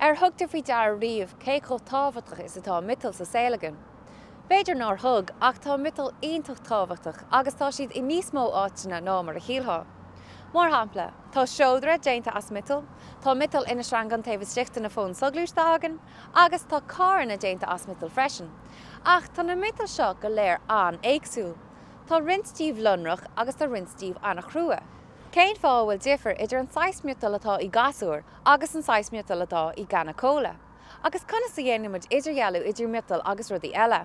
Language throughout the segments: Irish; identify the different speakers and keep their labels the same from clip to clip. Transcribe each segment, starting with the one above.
Speaker 1: Ar thug tú faoi deara riamh cé chomh tábhachtach is atá miotail sa saol againn? B'fhéidir nár thug, ach tá miotail iontach tábhachtach agus tá siad i níos mó áiteanna ná mar a shílfeá. Mar shampla, tá seodra déanta as miotal, tá miotal ina sreangán taobh istigh de na fóin soghluaiste againn, agus tá carranna déanta as miotal freisin. Ach tá na miotail seo go léir an-éagsúil. Tá roinnt díobh lonrach agus tá roinnt díobh an-chrua. Cén fáth a bhfuil difear idir an saghas miotail atá i gcasúr agus an saghas miotail atá i gcanna cóla? Agus conas a dhéanann muid idirdhealú idir miotail agus rudaí eile?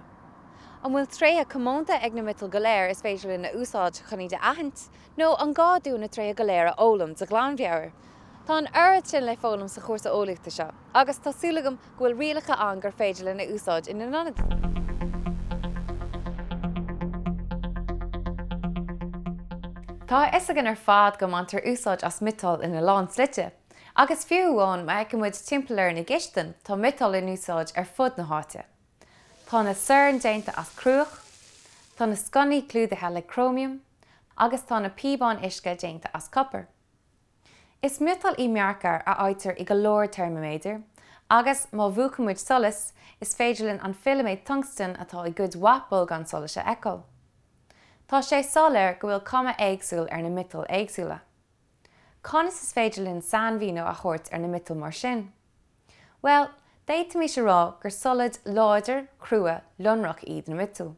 Speaker 1: An bhfuil tréithe comónta ag na miotail go léir is féidir linn a úsáid chun iad a aithint, nó an gá dúinn na tréithe go léir a fhoghlaim de ghlanmheabhair? Tá an oiread sin le foghlaim sa chúrsa eolaíochta seo, agus tá súil agam go bhfuil rialacha ann gur féidir linn a úsáid ina n-ionad. Tá a fhios againn ar fad go mbaintear úsáid as miotail ina lán slite, agus fiú amháin má fheiceann muid timpeall orainn i gcistin, tá miotal in úsáid ar fud na háite. Tá na soirn déanta as cruach, tá na sconnaí clúdaithe le cróimiam, agus tá na píobáin uisce déanta as copar. Is miotal í mearcair a fhaightear i go leor teirmiméadar, agus má mhúchann muid solas, is féidir linn an filiméad tungstain atá i gcuid mhaith bolgán solais a fheiceáil. Tá sé soiléir go bhfuil cuma éagsúil ar na miotail éagsúla. Conas is féidir linn sainmhíniú a thabhairt ar na miotail mar sin? Bhuel, d'fhéadfaimis a rá gur solaid láidir, chrua, lonrach iad na miotail.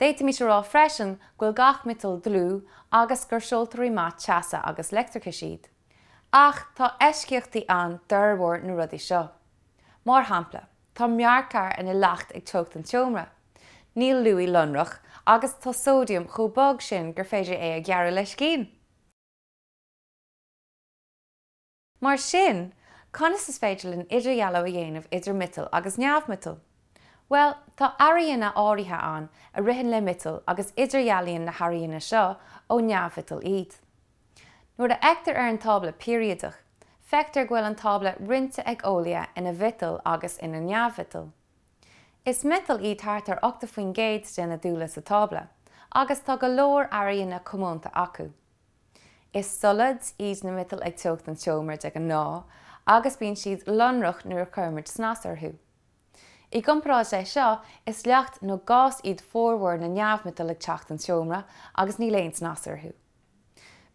Speaker 1: D'fhéadfaimis a rá freisin go bhfuil gach miotal dlúth agus gur seoltóirí maith teasa agus leictreachais iad. Ach tá eisceachtaí ann d'fhormhór na rudaí seo. Mar shampla, tá mearcair ina leacht ag teocht an tseomra, níl luaith lonrach agus tá sóidiam chomh bog sin gur féidir é a ghearradh le scian! Mar sin, conas is féidir linn idirdhealú a dhéanamh idir miotal agus neamh-mhiotal? Bhuel, tá airíonna áirithe ann a ritheann le miotail agus idirdhealaíonn na hairíonna seo ó neamh-mhiotail iad. Nuair a fheictear ar an tábla peiriadach, feictear go bhfuil an tábla roinnte ag eolaithe ina mhiotail agus ina neamh-mhiotail. Is miotail iad thart ar 80% de na dúile sa tábla, agus tá go leor airíonna comónta acu. Is solaid iad na miotail ag teocht an tseomra de ghnáth agus bíonn siad lonrach nuair a chuirimid snas orthu. I gcomparáid leis seo, is leacht nó gás iad formhór na neamh-mhiotal ag teocht an tseomra agus níl aon snas orthu.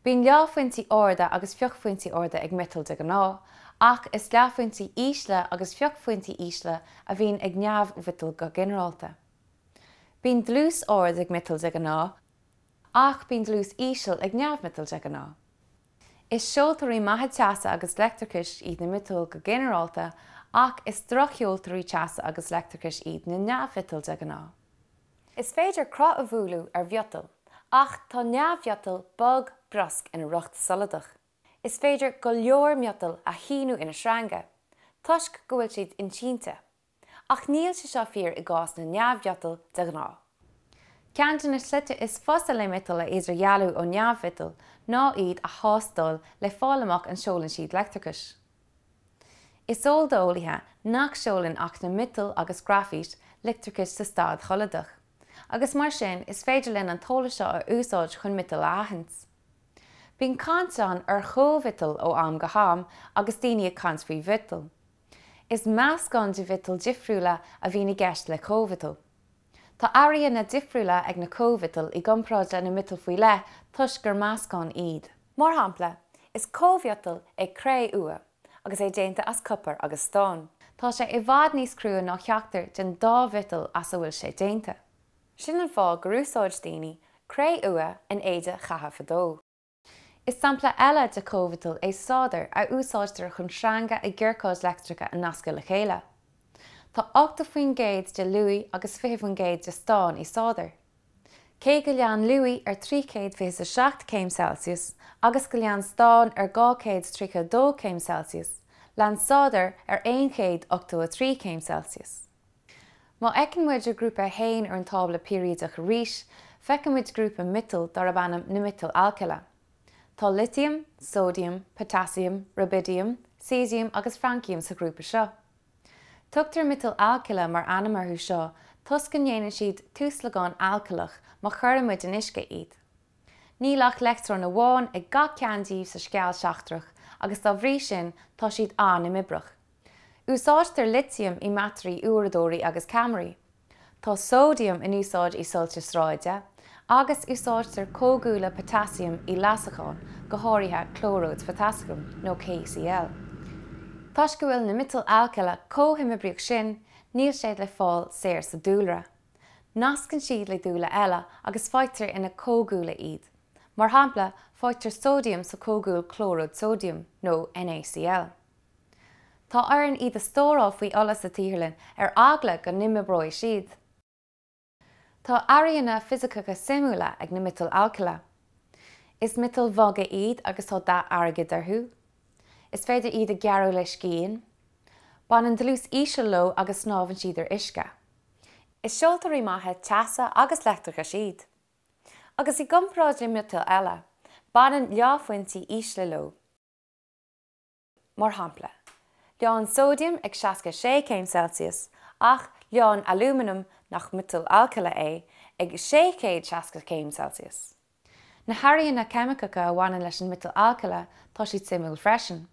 Speaker 1: Bíonn leáphointí arda agus fiuchphointí arda ag miotail de ghnáth, ach is leáphointí ísle agus fiuchphointí ísle a bhíonn ag neamh-mhiotail go ginearálta. Bíonn dlús ard ag miotail de ghnáth, Ach bíonn dlús íseal ag neamh-mhiotail de ghnáth. Is seoltóirí maithe teasa agus leictreachais iad na miotail go ginearálta ach is drochsheoltóirí teasa agus leictreachais iad na neamh-mhiotail de ghnáth. Is féidir cruth a bhualadh ar mhiotal, ach tá neamh-mhiotal bog briosc ina riocht soladach. Is féidir go leor miotal a shíniú ina sreanga, toisc go bhfuil siad insínte. Ach níl sé seo fíor i gcás na neamh-mhiotal de ghnáth. Ceann de na slite is fusa le miotail a idirdhealú ó neamh-mhiotail ná iad a thástáil le fáil amach an seolann siad leictreachas. Is eol d'eolaithe nach seolann ach na miotail agus graifít leictreachas sa staid sholadach, agus mar sin is féidir linn an t-eolas seo a úsáid chun miotail a aithint. Bíonn caint ann ar chóimhiotail ó am go ham agus daoine ag caint faoi mhiotail. Is meascán de mhiotail difriúla a bhíonn i gceist le cóimhiotal. Tá airíonna difriúla ag na cóimhiotail i gcomparáid le na miotail faoi leith toisc gur meascán iad. Mar shampla, is cóimhiotal é cré-umha agus é déanta as copar agus stán. Tá sé i bhfad níos crua ná ceachtar den dá mhiotal as a bhfuil sé déanta. Sin an fáth gur úsáid daoine cré-umha in éide chatha fadó. Is sampla eile de chóimhiotal é sádar a úsáidtear chun sreanga i gciorcáid leictreacha a nascadh le chéile. Tá 80% de luaith agus 20% de stán i sádar. Cé go leánn luaith ar 327 céim Celsius agus go leánn stán ar 232 céim Celsius, leánn sádar ar 183 céim Celsius. Má fheiceann muid ar Ghrúpa 1 ar an tábla peiriadach arís, feiceann muid grúpa miotal darb ainm na miotail alcaile. Tá litiam, sóidiam, potaisiam, rubaidiam, caesiam agus frainciam sa ghrúpa seo. Tugtar miotail alcaile mar ainm orthu seo toisc go ndéanann siad tuaslagán alcaileach má chuireann muid in uisce iad. Níl ach leictreon amháin ag gach ceann díobh sa sceall seachtrach agus dá bhrí sin tá siad an-imoibreach. Úsáidtear litiam i mbatairí uaireadóirí agus ceamaraí. Tá sóidiam in úsáid i soilse sráide, agus úsáidtear comhdhúile potaisiam i leasacháin, go háirithe clóiríd photaisiam, nó KCl. Toisc go bhfuil na miotail alcaile chomh himoibríoch sin, níl siad le fáil saor sa dúlra. Nascann siad le dúile eile agus faightear ina comhdhúile iad. Mar shampla, faightear sóidiam sa chomhdhúil clóiríd sóidiam, nó NaCl. Tá orainn iad a stóráil faoi ola sa tsaotharlann ar eagla go n-imoibreoidh siad. Tá airíonna fisiceacha suimiúla ag na miotail alcaile. Is miotail bhoga iad agus tá dath airgid orthu. Is féidir iad a ghearradh le scian. Baineann dlús íseal leo agus snámhann siad ar uisce. Is seoltóirí maithe teasa agus leictreachais iad. Agus i gcomparáid le miotail eile, baineann leáphointí ísle leo. Mar shampla, leánn sóidiam ag 66 céim Celsius ach leánn alúmanam, nach miotal alcaile é, ag 660 céim Celsius. Na hairíonna ceimiceacha a bhaineann leis an miotal alcaile, tá siad suimiúil freisin.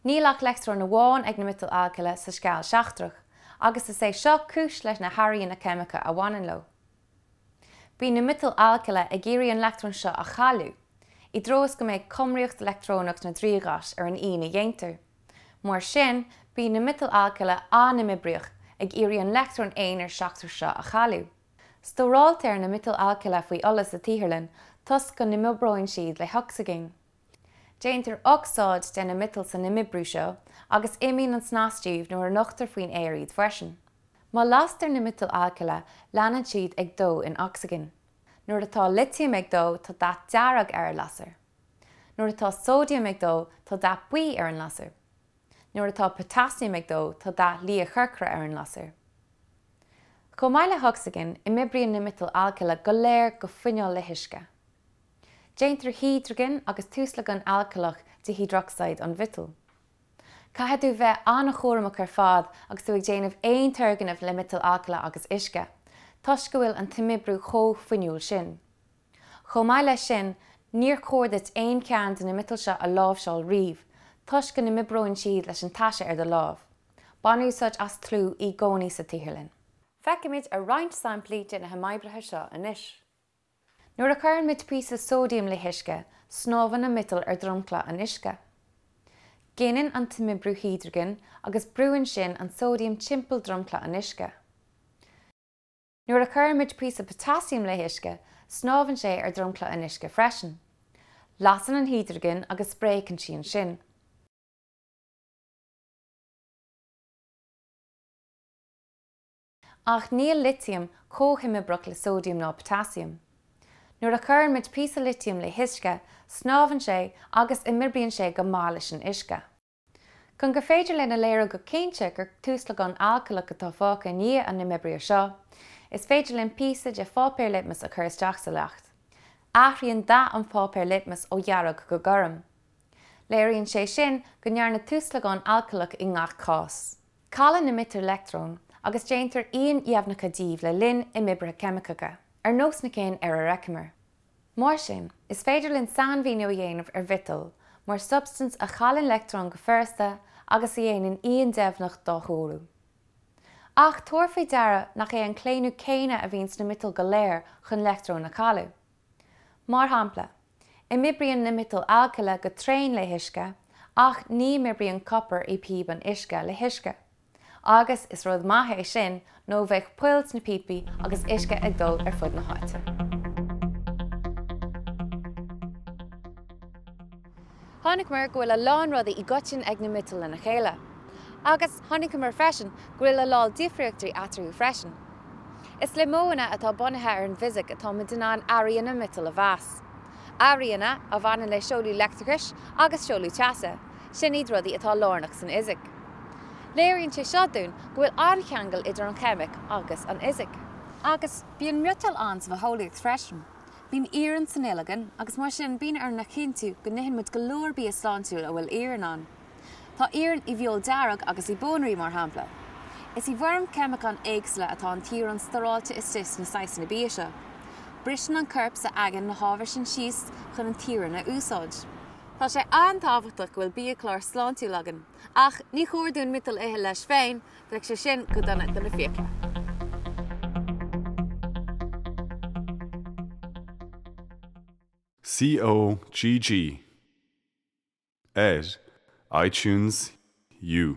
Speaker 1: Níl ach leictreon amháin ag na miotail alcaile sa sceall seachtrach, agus is é seo cúis leis na hairíonna ceimiceacha a bhaineann leo. Bíonn na miotail alcaile ag iarraidh an leictreon seo a chailleadh, i dtreo is go mbeidh cumraíocht leictreonach na dtriathghais ar an ian a dhéantar. Mar sin, bíonn na miotail alcaile an-imoibríoch, ag iarraidh an leictreon aonair seachtrach seo a chailleadh. Stóráiltear na miotail alcaile faoi ola sa tsaotharlann toisc go n-imoibríonn siad le hocsaigin. Déantar ocsaíd de na miotail san imoibriú seo agus imíonn an snas díobh nuair a nochtar faoin aer iad freisin. Má lastar na miotail alcaile, leanann siad ag dó in ocsaigin. Nuair atá litiam ag dó, tá dath dearg ar an lasair. Nuair atá sóidiam ag dó, tá dath buí ar an lasair. Nuair atá potaisiam ag dó, tá dath liathchorcra ar an lasair. Chomh maith le hocsaigin, imoibríonn na miotail alcaile go léir go fuinniúil le huisce. Déantar hidrigin agus tuaslagán alcaileach de hiodrocsaíd an mhiotail. Caithfidh tú bheith an-chúramach ar fad agus tú ag déanamh aon turgnaimh le miotail alcaile agus uisce, toisc go bhfuil an t-imoibriú chomh fuinniúil sin. Chomh maith leis sin, níor chóir duit aon cheann de na miotail seo a láimhseáil riamh, toisc go n-imoibreoidh siad leis an taise ar do lámh. Bain úsáid as tlú i gcónaí sa tsaotharlann. Feicfimid ar roinnt samplaí de na himoibrithe seo anois. Nuair a chuireann muid píosa sóidiam le huisce, snámhann an miotal ar dhromchla an uisce. Gineann an t-imoibriú hidrigin agus brúann sin an sóidiam timpeall dromchla an uisce. Nuair a chuireann muid píosa potaisiam le huisce, snámhann sé ar dhromchla an uisce freisin. Lasann an hidrigin agus spréachann sí ansin. Ach níl litiam chomh himoibreach le sóidiam ná potaisiam. Nuair a chuireann muid píosa litiam le huisce, snámhann sé agus imoibríonn sé go maith leis an uisce. Chun gur féidir linn a léiriú go cinnte gur tuaslagán alcaileach atá fágtha i ndiaidh an imoibrithe seo, is féidir linn píosa de pháipéar litmis a chur isteach sa leacht. Athraíonn dath an pháipéir litmis ó dhearg go gorm. Léiríonn sé sin go ndearnadh tuaslagán alcaileach i ngach cás. Cailleann na miotail leictreoin agus déantar iain dheimhneacha díobh le linn imoibrithe ceimiceacha, ar nós na cinn ar ar fheiceamar. Mar sin, is féidir linn sainmhíniú a dhéanamh ar mhiotal mar shubstaint a chailleann leictreon go furasta agus a dhéanann ian deimhneach dá thoradh. Ach tabhair faoi deara nach é an claonadh céanna a bhíonn sna miotail go léir chun leictreoin a chailleadh. Mar shampla, imoibríonn na miotail alcaile go tréan le huisce, ach ní imoibríonn copar i bpíob an uisce le huisce. Agus is rud maith é sin nó bheadh poill sna píopaí agus uisce ag dul ar fud na háite. Chonaiceamar go bhfuil a lán rudaí i gcoiteann ag na miotail lena chéile. Agus chonaiceamar freisin go bhfuil a lán difríochtaí eatarthu freisin. Is le modhanna atá bunaithe ar an bhfisic atá muid in ann airíonna miotal a mheas. Airíonna a bhaineann le seoladh leictreachais agus seoladh teasa, sin iad rudaí atá lárnach san fhisic. Léiríonn sé seo dúinn go bhfuil an-cheangal idir an cheimic agus an fhisic. Agus bíonn miotail ann sa bhitheolaíocht freisin. Bíonn iarann san fhuil againn agus mar sin bíonn orainn a chinntiú go n-itheann muid go leor bia sláintiúil a bhfuil iarann ann. Tá iarann i bhfeoil dearg agus i bpónairí, mar shampla. Is i bhfoirm ceimiceán éagsúla atá an t-iarann stóráilte istigh sna saghsanna bia seo. Briseann an corp s'againn na hábhair sin síos chun an t-iarann a úsáid. Tá sé an-tábhachtach go bhfuil biachlár sláintiúil againn, ach ní chóir dúinn miotal a ithe leis féin, bheadh sé sin go dona do na fiacla.
Speaker 2: COGG ar iTunes U.